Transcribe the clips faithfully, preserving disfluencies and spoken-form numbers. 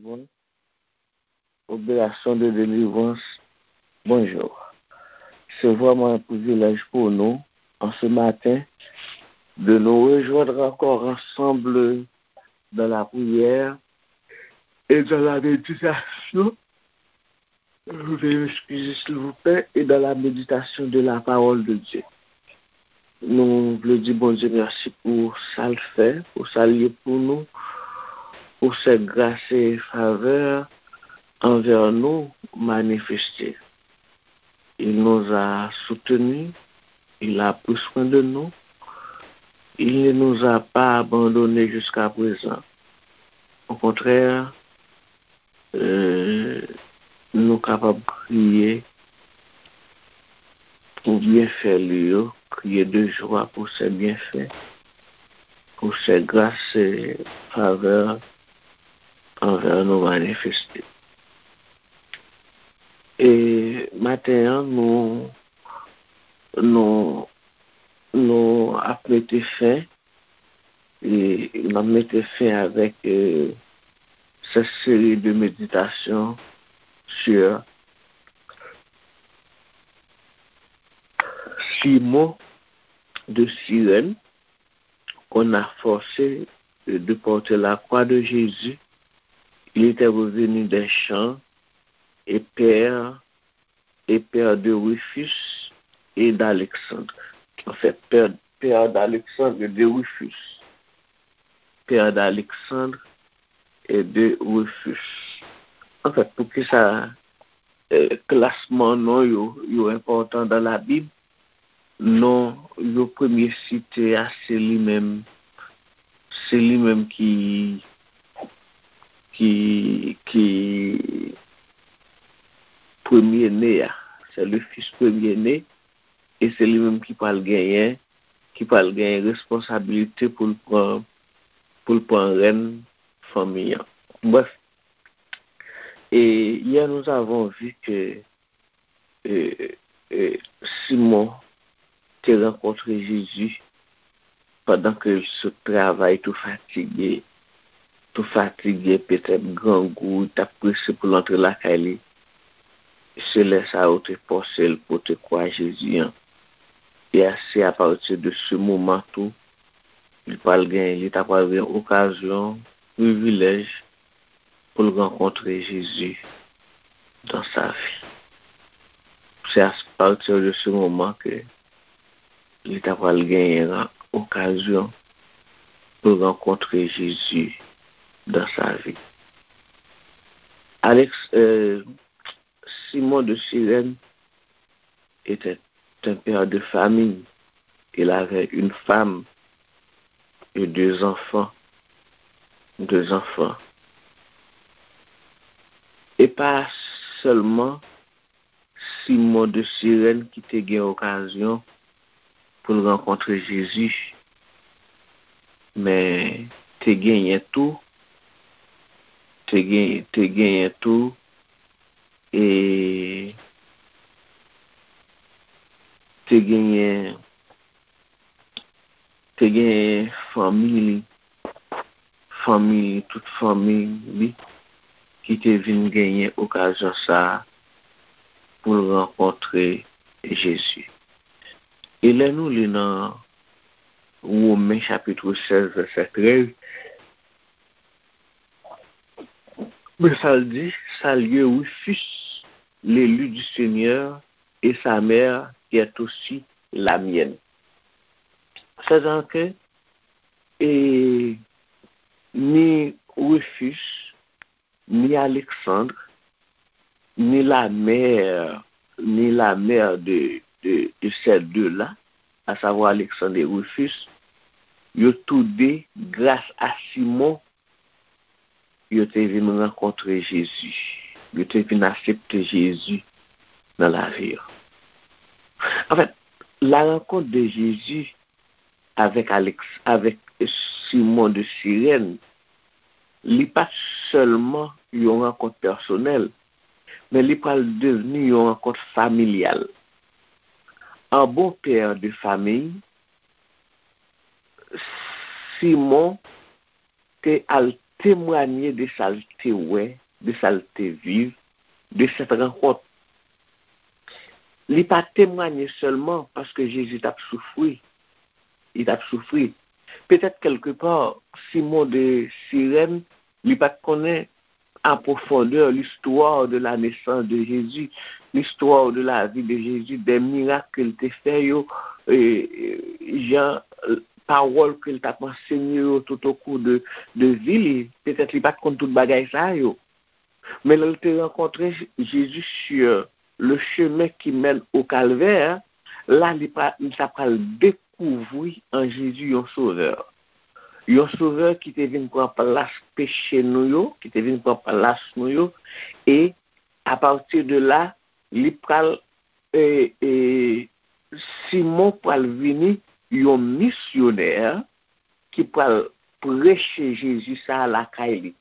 Bon, opération de délivrance. Bonjour. C'est vraiment un privilège pour nous, en ce matin, de nous rejoindre encore ensemble dans la prière et dans la méditation. Veuillez m'excuser, s'il vous plaît, et dans la méditation de la parole de Dieu. Nou vle di Bondye mèsi pou sa l fè, pou sa l ye pou nou, pou ses grâces et faveurs envers nous manifestées. Il nous a soutenus, il a pris soin de nous, il ne nous a pas abandonnés jusqu'à présent. Au contraire, euh, nou kapab kriye pou byenfè li yo, crier de joie pour ses bienfaits, pour ses grâces et faveurs envers nous manifestées. E maten an, nou, nou, nou ap mete fen, e n ap mete fen avèk, euh, cette série de méditations sur Simon de Cyrène, qu'on a forcé de porter la croix de Jésus. Il était revenu des champs et père, et père de Rufus et d'Alexandre. En fait, père, père d'Alexandre et de Rufus. Père d'Alexandre et de Rufus. En fait, poukisa, euh, klasman non yo, yo enpòtan dans la Bible? Non yo premye site a, se li menm, se li menm ki, ki, ki premye ne a. C'est le fils premier-né, e se li menm ki pral genyen, ki pral genyen responsabilite pou l pran, pou l pran rèn fanmi an. Bref, et hier nous avons vu que e, e, Simon te rankontre Jezi pandan ke l sot travay tou fatige, tou fatige, petèt grangou, li t ap prese pou l antre lakay li. Se lè sa yo te fòse l pote kwa Jezi an. E a, se apati de se moman tou, li pral gen, li ta pral gen okazyon, privilèj pou l rankontre Jezi dans sa vie. Se à partir de ce moment que li ta pral genyen okazyon pou l rankontre Jezi dans sa vie. Alex, euh, Simon de Sirène était un père de famille. Il avait une femme et deux enfants. Deux enfants. E pa sèlman Simon de Sirène ki te gen okazyon pou l rankontre Jezi, men te genyen tou, te gen, te genyen tou, e te genyen, te genyen fanmi li, fanmi li, tout fanmi li ki te vin genyen okazyon sa a pou l rankontre Jezi. E lè nou li nan Women chapit sèz, vèsè trèz, men sa l di, Saluez Rufus, l'élu du Seigneur, et sa mère, qui est aussi la mienne. C'est-à-dire que, et ni Rufus, ni Alexandre, ni la mère, ni la mère de, de, de ces deux-là, à savoir Alexandre et Rufus, yo tou de, gras a Simon, yo te vin rankontre Jezi. Yo te vin aksepte Jezi nan lavi yo. Anfèt, la rencontre de Jésus avec Alex, avec Simon de Sirène, li pa t sèlman yon rankont pèsonèl, men li pral devni yon rankont familyal. An bon pè de fanmi, Simon te al temwanye de sa l te wè, de sa l te viv, de sèt rankont. Li pa temwanye sèlman paske Jezi t ap soufri. Li t ap soufri. Petèt kèlkepa, Simon de Sirèn, li pa t konnen a pwofondè listwa de la nesans de Jezi, listwa de la vi de Jezi, dè mirak ke l te fè yo, e, e, jan, e, pawòl ke l t ap ansenye yo toutokou de, de vi li. Petèt li pa t konn tout bagay sa yo. Men lè l te rankontre Jezi sur le chemin qui mène au calvaire, la li pa, li ta pral dekouvri an Jezi yon sovè. Yon sovè ki te vin pran plas peche nou yo, ki te vin pran plas nou yo, e apati de la, li pral, e, e, Simon pral vini yon misyonè ki pral preche Jezi sa a lakay li.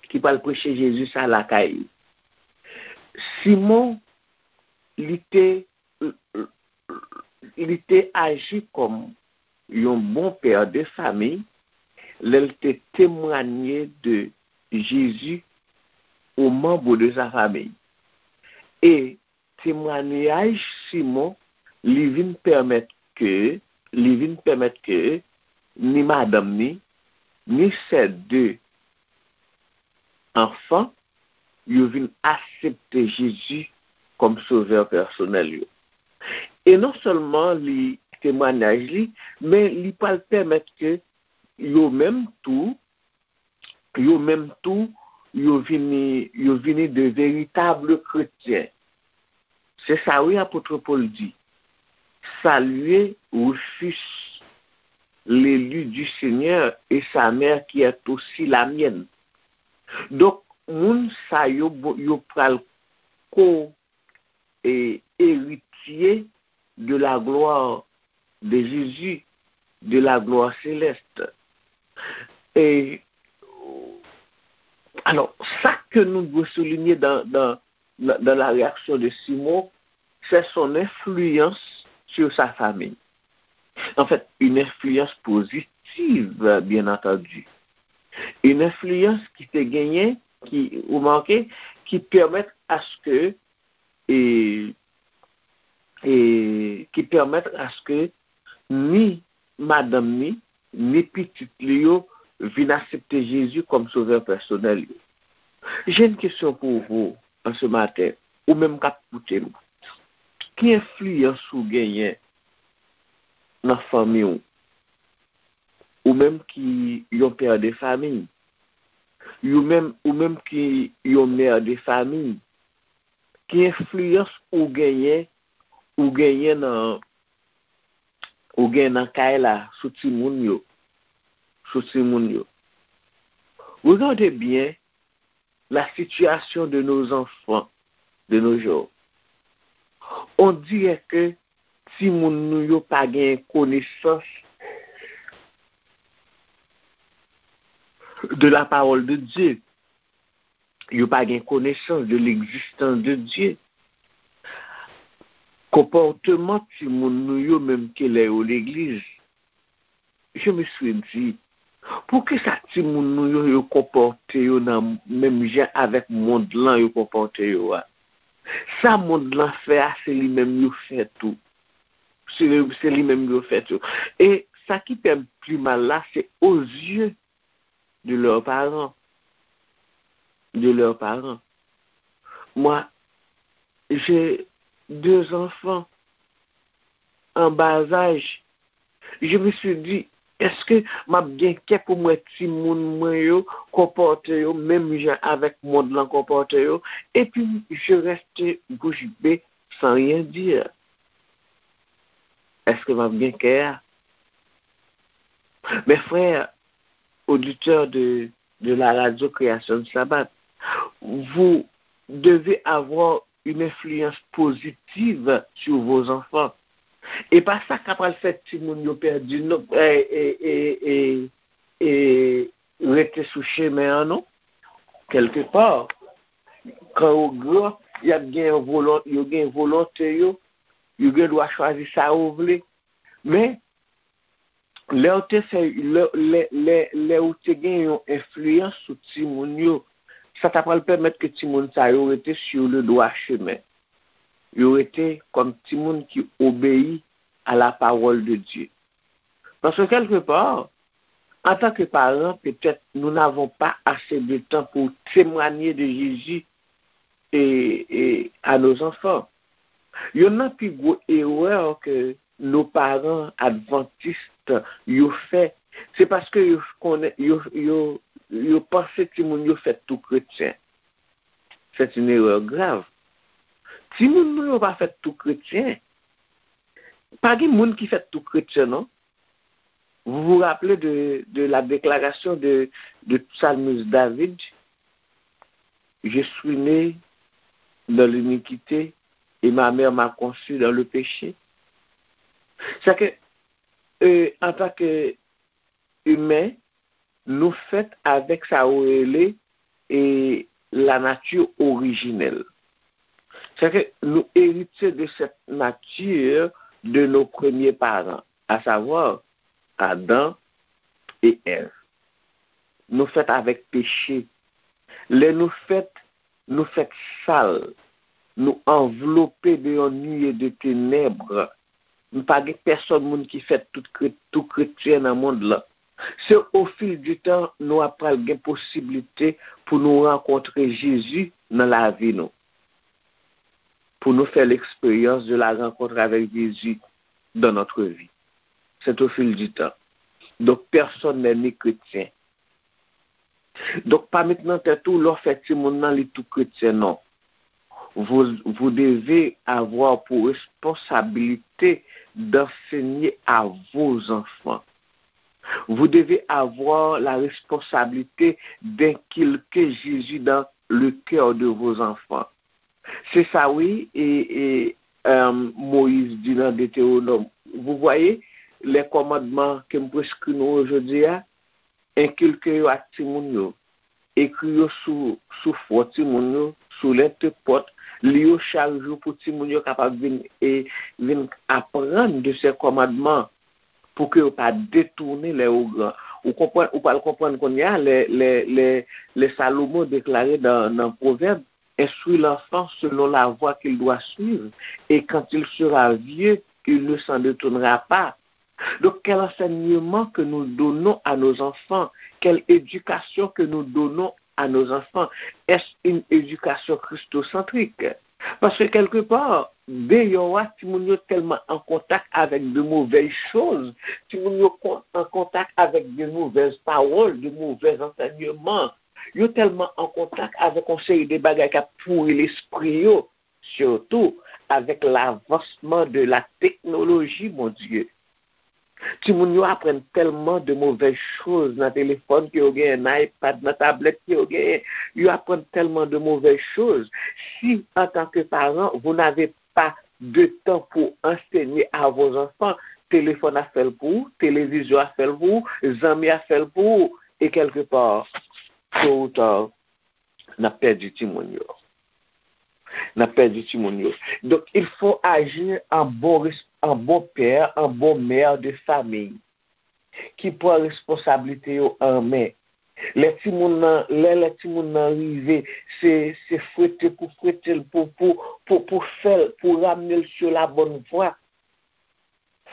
Ki pral preche Jezi sa lakay li. Simon, li te, li te aji kòm yon bon pè de fami lè l te temwanye de Jezi aux membres de sa famille. E temwanyaj Simon, li vin pèmèt ke, li vin pèmèt ke ni madanm ni, ni sè de anfan, yo vin aksepte Jezi kòm sovè pèsonèl yo. E non sèlman li temwanyaj li, men li pral pèmèt ke yo menm tou, yo menm tou, yo vini, yo vini de veritab kretyen. Se sa wi apot Pòl di. Saluez Rufus, l'élu du Seigneur, et sa mère qui est aussi la mienne. Donk, moun sa yo, yo pral ko e eritye de la gloire de Jésus, de la gloire céleste. E, alò, sa ke nou dwe soulinye dans, dans, dans la réaction de Simon, c'est son influence sur sa famille. En fait, une influence positive, bien entendu. Une influence ki te genyen, ki, ou remake, ki pèmèt aske, e, e, ki pèmèt aske ni madanm ni, ni pitit li yo vin aksepte Jezi kòm sovè pèsonèl yo. J'ai une question pour vous en ce matin, ou menm k ap koute m. Ki enfliyans ou genyen nan fanmi w? Ou menm ki yon pè de fami, ou menm, ou menm ki yon mè de fami, ki enfliyans ou genyen, ou genyen nan, ou genyen nan kay la sou timoun yo, sou timoun yo? Regardez bien la situation de nos enfants de nos jours. On dirait que timoun nou yo pa gen konesans de la parole de Dieu. Yo pa gen konesans de l'existence de Dieu. Konpòteman timoun nou yo, menm ke lè yo legliz, je me suis dit, poukisa timoun nou yo, yo konpòte yo nan menm jan avèk mond lan yo konpòte yo a? Sa mond lan fè a, se li menm yo fè tou. Se, se li menm yo fè tou. E sa ki fè m pi mal la, c'est aux yeux de leurs parents. De leurs parents. Moi, j'ai deux enfants en bas âge. Je me suis dit, èske m ap gen kè pou m wè timoun mwen yo konpòte yo menm jan avèk mond lan konpòte yo? Epi, je reste bouche bée sans rien dire. Èske m ap gen kè a? Mes frères, auditeurs de, de la radio Création du Sabbat, vous devez avoir une influence positive sur vos enfants. E pa sa k ap pral fè timoun yo pèdi, non, e, e, e, e, e rete sou chemen an, non. Kèlkepa, kan yo gran, y ap gen volon-, yo gen volonte yo, yo gen dwa chwazi sa yo vle. Men, Lè w te fè, lè, lè, lè, lè ou te gen yon enfliyans sou timoun yo, sa ta pral pèmèt ke timoun sa yo rete sur le droit chemen. Yo rete kòm timoun ki obeyi à la parole de Dieu. Paske kèlkepa, antanke paran, petèt nou n'avons pas assez de temps pour témoigner de Jésus et, et à nos enfants. Youn nan pi gwo erè ke nos parents adventistes yo fè, se paske yo konnen, yo, yo, yo panse timoun yo fèt tou kretyen. C'est une erreur grave. Timoun nou yo pa fèt tou kretyen. Pa gen moun ki fèt tou kretyen, non. Vous vous rappelez de, de la déclaration de, de psalmiste David, je suis né dans l'iniquité et ma mère m'a conçu dans le péché. Sa ke, euh, antanke imen, nou fèt avèk sa yo rele e la nature originelle. Sa ke nou eritye de cette nature de nos premiers parents, à savoir Adam et Èv. Nou fèt avèk peche. Lè nou fèt, nou fèt sal. Nou anvlope de yon nuée de ténèbres. Nou pa gen pèsòn moun ki fèt tout kre-, tou kretyen nan mond lan. Se au fil du temps nou ap pral gen posiblite pou nou rankontre Jezi nan lavi nou. Pou nou fè l'expérience de la rencontre avec Jésus dans notre vie. C'est au fil du temps. Donc, personne n'est né chrétien. Donk, pa met nan tèt ou, lè w fè timoun nan, li tou kretyen, non. Vous, vous devez avoir pour responsabilité d'enseigner à vos enfants. Vous devez avoir la responsabilité d'inculquer Jésus dans le cœur de vos enfants. Se sa, wi, e, e, euh, Moyiz di nan Detewonòm. Vous voyez, les commandements ke m preskri nou yo jodi a, enkilke yo ak timoun yo. Ekri yo sou, sou fwon timoun yo, sou lentre pòt. Li yo chak jou pou timoun yo kapab vin, e, vin aprann de ces commandements, pou ke yo pa detounen lè yo gran. Ou konprann, ou pral konprann kounye a, lè, lè, lè, lè Salomon deklare nan, nan Pwovèb, Instruis l'enfant selon la voie qu'il doit suivre, et quand il sera vieux, il ne s'en détournera pas. Donc, quel enseignement que nous donnons à nos enfants? Quelle éducation que nous donnons à nos enfants? Est-ce une éducation christocentrique? Paske kèlkepa, deyò a, timoun yo tèlman an kontak avèk de mauvaises choses, timoun yo kon-, an kontak avèk de mauvaises paroles, de mauvais enseignements, yo tèlman an kontak avèk yon seri de bagay k ap pouri lespri yo, sitou avèk lavansman de la teknoloji, mon Dieu. Timoun yo aprann tèlman de mauvaises choses nan telefòn ke yo genyen, nan iPad, nan tablèt ke yo genyen. Yo aprann tèlman de mauvaises choses. Si, en tant que parent, vous n'avez pas de temps pour enseigner à vos enfants, telefòn ap fè l pou ou, televizyon ap fè l pou ou, zanmi ap fè l pou ou, e kèlkepa, tôt ou tard, n ap pèdi timoun yo. N ap pèdi timoun yo. Donc, il faut agir en bon res-, en bon père, en bon mère de famille, ki pran responsablite yo an men. Lè timoun nan, lè, lè timoun nan rive, se, se fwete pou fwete l, pou, pou, pou, pou fè l, pou ramne l sur la bonne voie.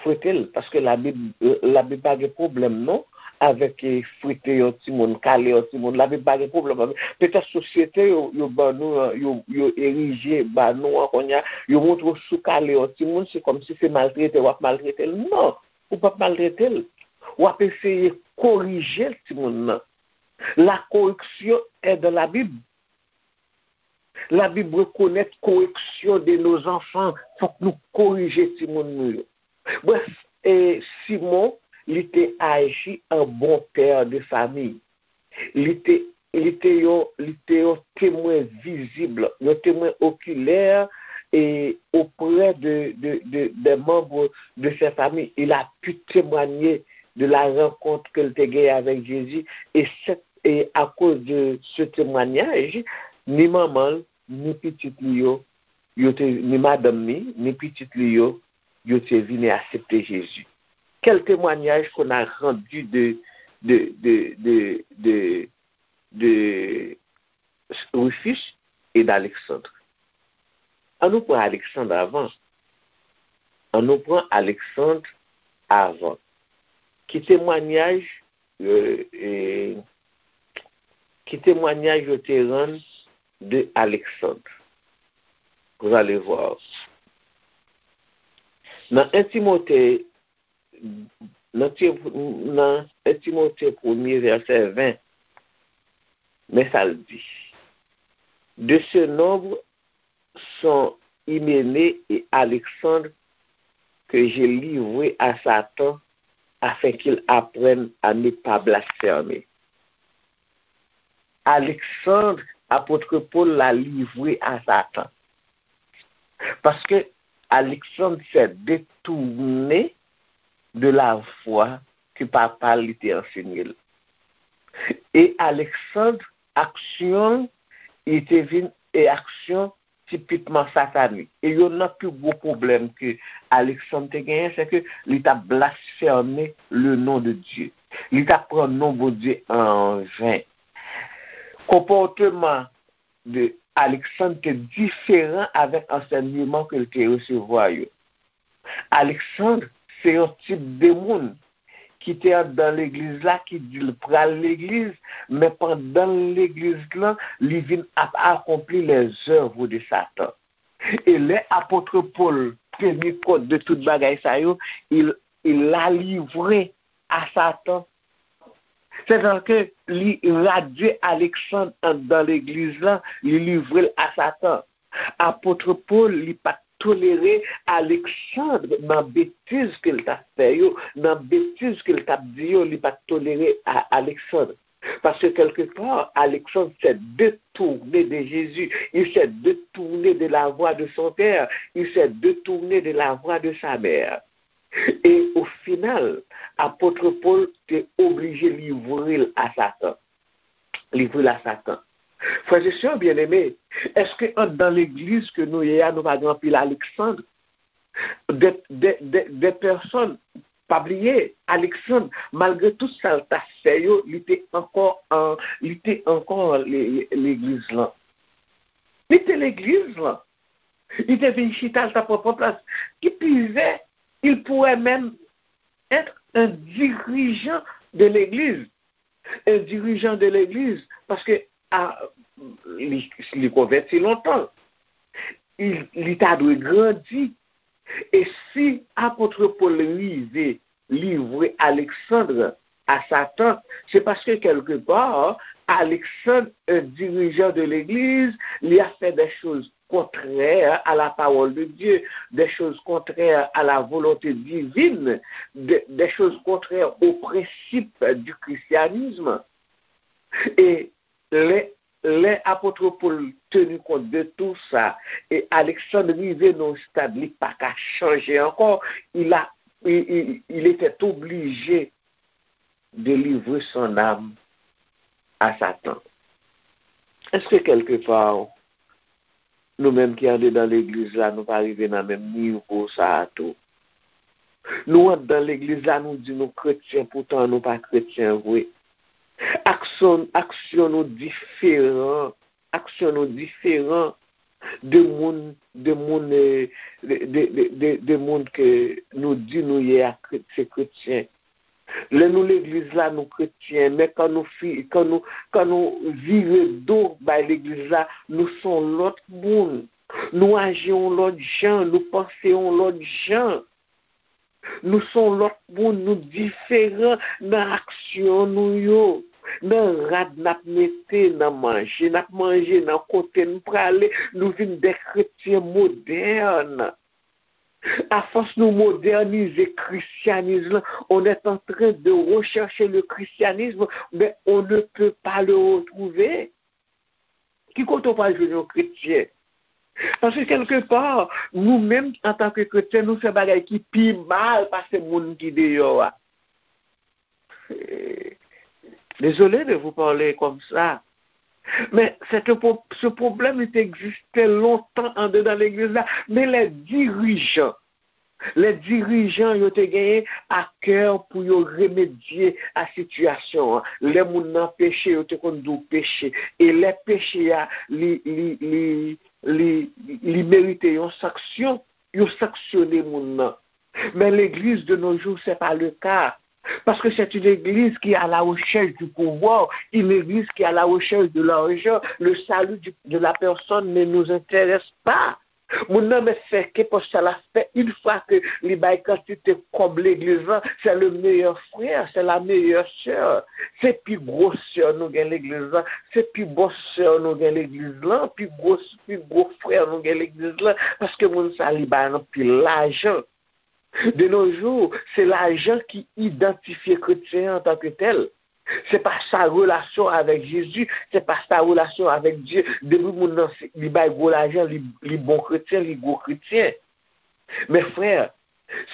Fwete l, paske Labib, Labib pa gen pwoblèm non avèk, eh, fwete yon timoun, kale yon timoun. Labib pa gen pwoblèm avèk. Petèt sosyete yo, yo ban nou an, yo, yo erije ba nou an kounye a, yo montre w si w kale yon timoun, se kòmsi se maltrete w ap maltrete l. Non, ou p ap maltrete l. W ap eseye korije timoun nan. La correction est dans la Bible. Labib rekonèt koreksyon de nos enfants. Fòk nou korije timoun nou yo. Brèf, e Simon, li te aji an bon pè de famiy. Li te, li te yon, li te yon temwen vizib, yon temwen okilè, e oprè de, de, de, des membres de sa famille. Il a pu témoigner de la rencontre ke l te genyen avèk Jezi, e sèt, e akoz de ce témoignage, ni manman l, ni pitit li yo, yo te, ni madanm ni, ni pitit li yo, yo te vini aksepte Jezi. Quel témoignage qu'on a rendu de, de, de, de, de, de Rufus et d'Alexandre? An nou pran Alexandre avan. An nou pran Alexandre avan. Ki temwanyaj, euh, euh, ki temwanyaj yo te rann de Alexandre? Vous allez voir. Nan un Timothée, nan Ti-, nan un Timothée premier, verset vingt, men sa l di. De ce nombre sont Hyménée et Alexandre que j'ai livrés à Satan afin qu'il apprenne à ne pas blasphémer. Alexandre, apot Pòl la livre a Satan. Paske Alexandre s'est détourné de la voie ke papa li te ansenye l. E Alexandre, aksyon li te vin e aksyon tipikman satanik. E youn nan pi gwo pwoblèm ke Alexandre te genyen, se ke li t ap blasfème le nom de Dieu. Li t ap pran non Bondye an ven. Konpòteman de Alexandre te diferan avèk ansèyman ke l te resevwa yo. Alexandre se yon tip de moun ki te anndan legliz la, ki di l pral legliz, men pandan l legliz lan, li vin ap akonpli les œuvres de Satan. E lè apot Pòl teni kont de tout bagay sa yo, il, il l'a livré à Satan. Sètadi ke li radye Alexandre anndan legliz lan, li livre l a Satan. Apot Pòl, li pa t tolere Alexandre nan betiz ke l t ap fè yo, nan betiz ke l t ap di yo, li pa t tolere a Alexandre. Parce que quelque part, Alexandre s'est détourné de Jésus, il s'est détourné de la voie de son père, il s'est détourné de la voie de sa mère. E o final, apot Pòl te oblije livre l a Satan. Livre l a Satan. Frè e sè byeneme, èske anndan legliz ke nou ye a, nou pa gen anpil Alexandre? De, de, de, de pèsòn, pa bliye, Alexandre, malgre tout sa l ta fè yo, li te ankò an, li te ankò le-, le-, legliz lan. Li te legliz lan. Li te vin chita, l t ap pran plas. Qui plus est, il pourrait même être un dirigeant de l'église. Un dirigeant de l'église, paske a, li, li konvèti lontan. Li, li ta dwe grandi. E si apot Pòl rive livre Alexandre à Satan, c'est parce que quelque part, Alexandre, un dirigeant de l'église, li a fait des choses contraires à la parole de Dieu, des choses contraires à la volonté divine, de, des choses contraires aux principes du christianisme. E lè, lè apot Pòl teni kont de tout sa, e Alexandre rive nan yon stad li pa ka chanje ankò, il a, il, il, il était obligé de livrer son âme à Satan. Èske kèlkepa nou menm ki andedan legliz la, nou pa rive nan menm nivo sa a tou? Nou anndan legliz la, nou di nou kretyen, poutan nou pa kretyen vre. Aksyon, aksyon nou diferan, aksyon nou diferan de moun, de moun, eh, de, de, de, de, de moun ke nou di nou ye a kre-, se kretyen. Lè nou legliz la, nou kretyen, men kan nou fi-, kan nou, kan nou vire do bay legliz la, nou se yon lòt moun. Nou aji yon lòt jan, nou panse yon lòt jan. Nou se yon lòt moun, nou diferan nan aksyon nou yo, nan rad n ap mete, nan manje n ap manje, nan kote n prale, nou vin de kretyen modèn. Afòs nou modènize kristyanis lan, on est en train de rechercher le christianisme, mais on ne peut pas le retrouver. Ki kote w pral jwenn yon kretyen? Paske kèlkepa, nou menm, antanke kretyen, nou fè bagay ki pi mal pase moun ki deyò a. Désolé de vous parler comme ça. Men se te pwo-, se pwoblèm li te egziste lontan andedan legliz la. Men lè dirijan Lè dirijan yo te genyen a kè pou yo remedye a sitiyasyon an. Lè moun nan peche, yo te konn di w peche. E lè peche a, li, li, li, li, li merite yon sanksyon, yo sanksyone moun nan. Men legliz de nos jours, c'est pas le cas. Parce que c'est une église qui est à la recherche du pouvoir, une église qui est à la recherche de l'argent. Le salut du- de la personne ne nous intéresse pas. Moun nan mèt fè kenpòt sa l ap fè, une fois que li bay kantite kòb legliz lan, c'est le meilleur frère, c'est la meilleure sœur. Se pi gwo sè nou gen legliz lan, se pi bon sè nou gen legliz lan, pi gwo, pi gwo frè nou gen legliz lan, paske moun sa li bay anpil lajan. De nos jours, se lajan ki idantifye kretyen an antanke tèl. Se pa sa relasyon avèk Jezi, se pa sa relasyon avèk Dye. Depi moun nan se- li bay gwo lajan, li, li bon kretyen, li gwo kretyen. Men frè,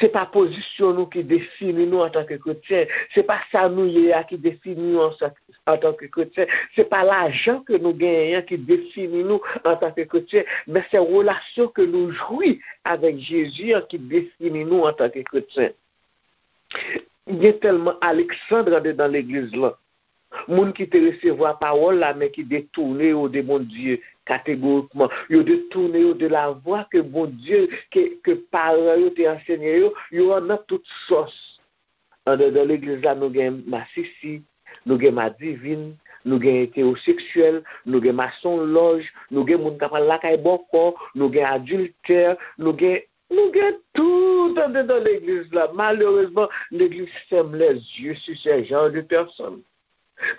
se pa pozisyon nou ki defini nou antanke kretyen. Se pa sa nou ye a ki defini nou ansanm antanke kretyen. Se pa lajan ke nou genyen an ki defini nou antanke kretyen, men se relasyon ke nou jwi avèk Jezi an ki defini nou antanke kretyen. Gen tèlman Aleksandr andedan legliz lan. Moun ki te resevwa pawòl la, men ki detounen yo de Bondye kategorikman. Yo detounen yo de lavwa ke Bondye, ke, ke paran yo te ansenye yo, yo annan tout sòs. Andedan legliz la, nou gen masisi, nou gen madivin, nou gen etewoseksyèl, nou gen masonlòj, nou gen moun k ap al lakay bòkò, nou gen adiltè, nou gen, nou gen tout andedan legliz la. Malerezman, legliz ferme les yeux sur ce genre de personnes.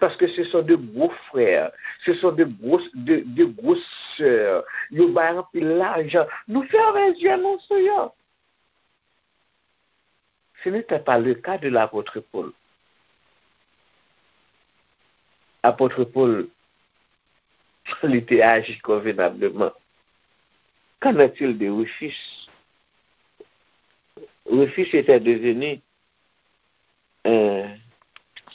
Parce que ce sont de gros frères, ce sont de gros, de, de grosses sœurs. Yo bay anpil lajan. Nou fèmen zye nou sou yo. Ce n'était pas le cas de l'apôtre Paul. Apôtre Paul, li te aji konvenableman. Qu'en est-il de Rufus? Rufus était devenu un,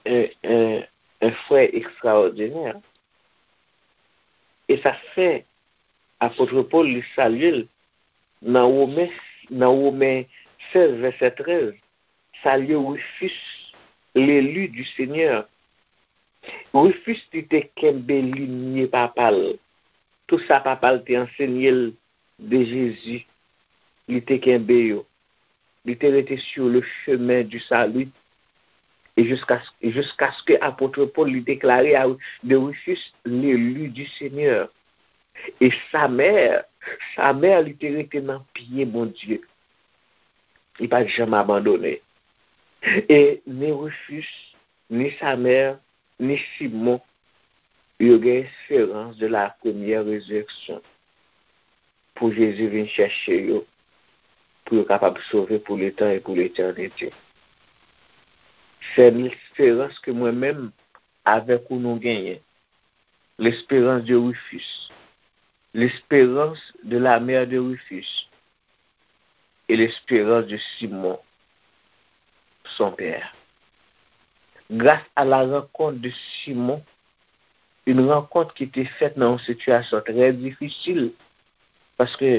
un, un, un frère extraordinaire. E sa fè apot Pòl li salye l nan Women, nan Women sèz, vèsè trèz, salye Rufus, l'élu du Seigneur. Rufus, li te kenbe linye papa l. Tout sa papa l te ansenye l de Jezi, li te kenbe yo. Li te rete sur le chemin du salut. Et jusqu'à, jusqu'à ce que apot Pòl li deklare a, de Rufus, l'élu du Seigneur. E sa mè, sa mè li te rete nan pye Bondye. Li pa t janm abandone. E ni Rufus, ni sa mè, ni Simon, yo gen esperans de la première résurrection. Pou Jezi vin chèche yo, pou yo kapab sove pou letan e pou letènite. Se esperans ke mwen menm avèk ou nou genyen. L'espérance de Rufus. L'espérance de la mère de Rufus. Et l'espérance de Simon, son père. Grâce à la rencontre de Simon, une rencontre qui était faite dans une situation très difficile, paske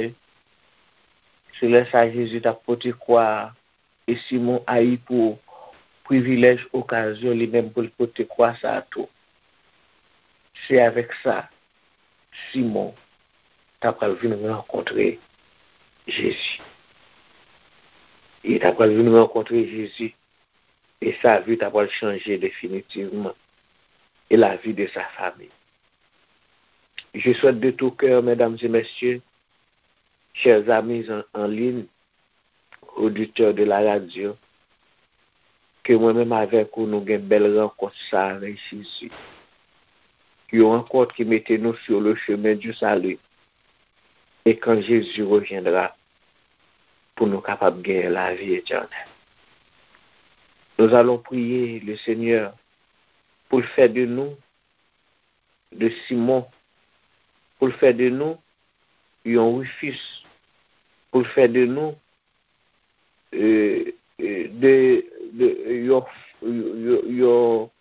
se lè sa Jezi t ap pote kwa a, e Simon ayi pou privilèj, okazyon li menm pou l pote kwa sa a tou. Se avèk sa Simon ta pral vin rankontre Jezi. Li ta pral vin rankontre Jezi, e sa vi ta pral chanje definitivman, e la vie de sa famille. Je souhaite de tout cœur, mesdames et messieurs, chers amis en, en ligne, auditeurs de la radio, ke mwen menm avèk ou nou gen bèl rankont sa avèk Jezi. Yon rankont ki mete nou sur le chemin du salut. Et quand Jésus reviendra, pou nou kapab genyen lavi etènèl. Nous allons prier le Seigneur pou l fè de nou, de Simon, pou l fè de nou yon Rufus, pou l fè de nou, euh, euh, de, de, yon, yon, yon,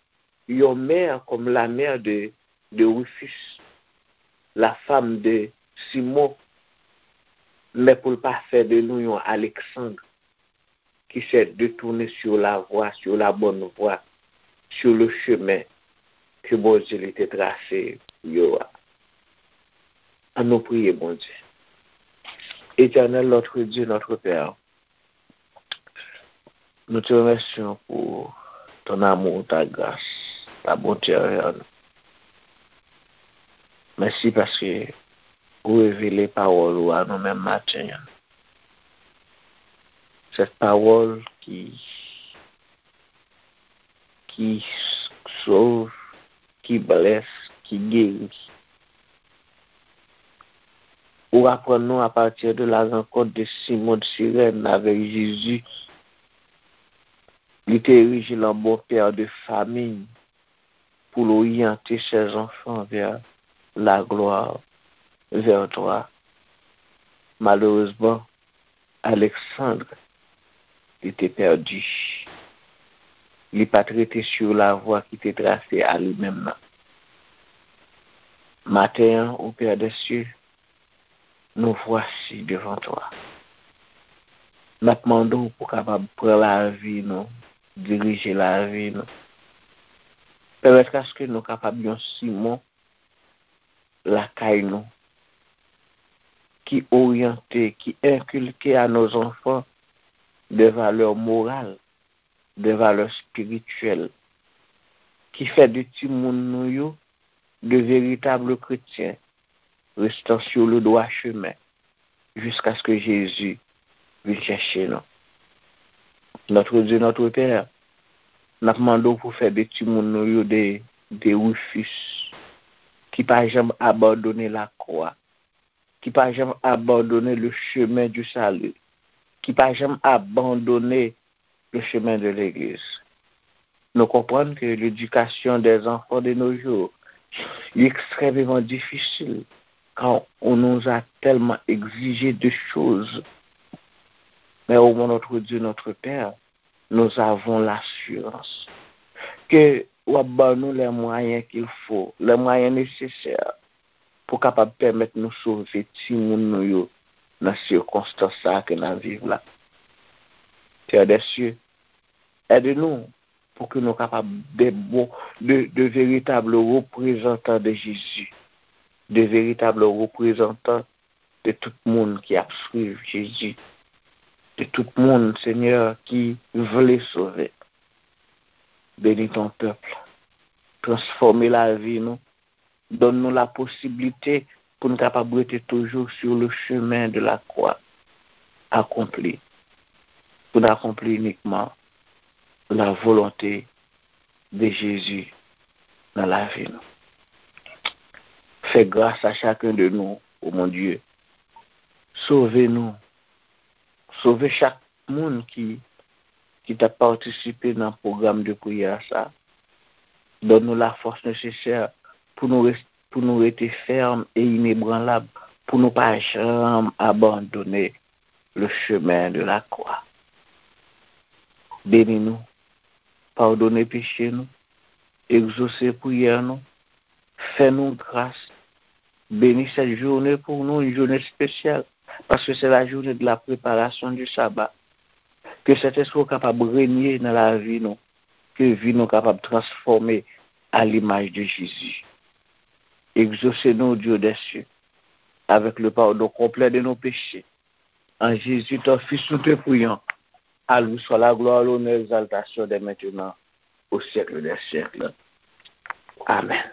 yon mère comme la mère de, de Rufus, la femme de Simon, men pou l pa fè de nou yon Aleksandr. qui s'est détourné sur la voie, sur la bonne voie, sur le chemin que Bondye li te trase pou yo a. An nou priye Bondye. Éternel, notre Dieu, notre Père, nous te remercions pour ton amour, ta grâce, ta bonté envers nous. Mèsi paske ou revele pawòl ou a nou menm maten an. Cette parole qui, qui sauve, qui blesse, qui guérit. Ou aprann nou à partir de la rencontre de Simon de Sirène avec Jésus, li te erije l an bon père de famille pour orienter ses enfants vers la gloire, vers toi. Malheureusement, Alexandre, li te pèdi. Li pa t rete sur la voie ki te trase a li menm nan. Maten an, au Père des cieux, nous voici devant toi. N ap mande w pou kapab pran lavi nou, dirije lavi nou. Pèmèt aske nou kapab yon Simon lakay nou, ki oryante, ki enkilke a nos enfants des valeurs morales, des valeurs spirituelles, ki fè de timoun nou yo de véritables chrétiens, restant sur le droit chemin, jusqu'à ce que Jésus vin chèche nou. Notre Dieu, notre Père, n ap mande w pou fè de timoun nou yo de, de Rufus, ki pa janm abandone lakwa, ki pa janm abandone le chemin du salut, ki pa janm abandone le chemin de l'église. Nou konprann ke ledikasyon dè zanfan de nos jours li ekstrèmeman difisil, kan on nous a tellement exigé de choses. Mais au moins notre Dieu, notre Père, nous avons l'assurance ke w ap ban nou les moyens qu'il faut, les moyens nécessaires pou kapab pèmèt nou sove timoun nou yo nan sikonstans sa a ke n ap viv la. Père des cieux, aide nous pour que nous capables de, de, de véritables représentants de Jésus, de véritables représentants de tout moun ki ap swiv Jezi, de tout moun, Senyè, ki vle sove. Bénis ton peuple. Transfòme lavi nou. Donn nou la posiblite pou n kapab rete toujou sur le chemin de la croix accomplie. Pou n akonpli inikman la volonte de Jezi nan lavi nou. Fè gras a chacun de nous, o Bondye. Sove nou. Sove chak moun ki, ki t ap patisipe nan pwogram de priyè sa. Donn nou la force nécessaire pou nou res-, pou nou rete fèm e inebranlab, pou nou pa janm abandone le chemin de la croix. Beni nou, padone peche nou, egzose priyè nou, fè nou gras, beni cette journée pou nou, une journée spéciale, parce que c'est la journée de la préparation du sabbat. Ke Sentespri w kapab renye nan lavi nou, ke vi nou kapab transfòme à l'image de Jésus. Exaucez-nous, Dieu des cieux, avec le pardon complet de nos péchés. En Jésus, ton Fils, nous te prions. À lui soit la gloire, l'honneur, l'exaltation dès maintenant, au siècle des siècles. Amen.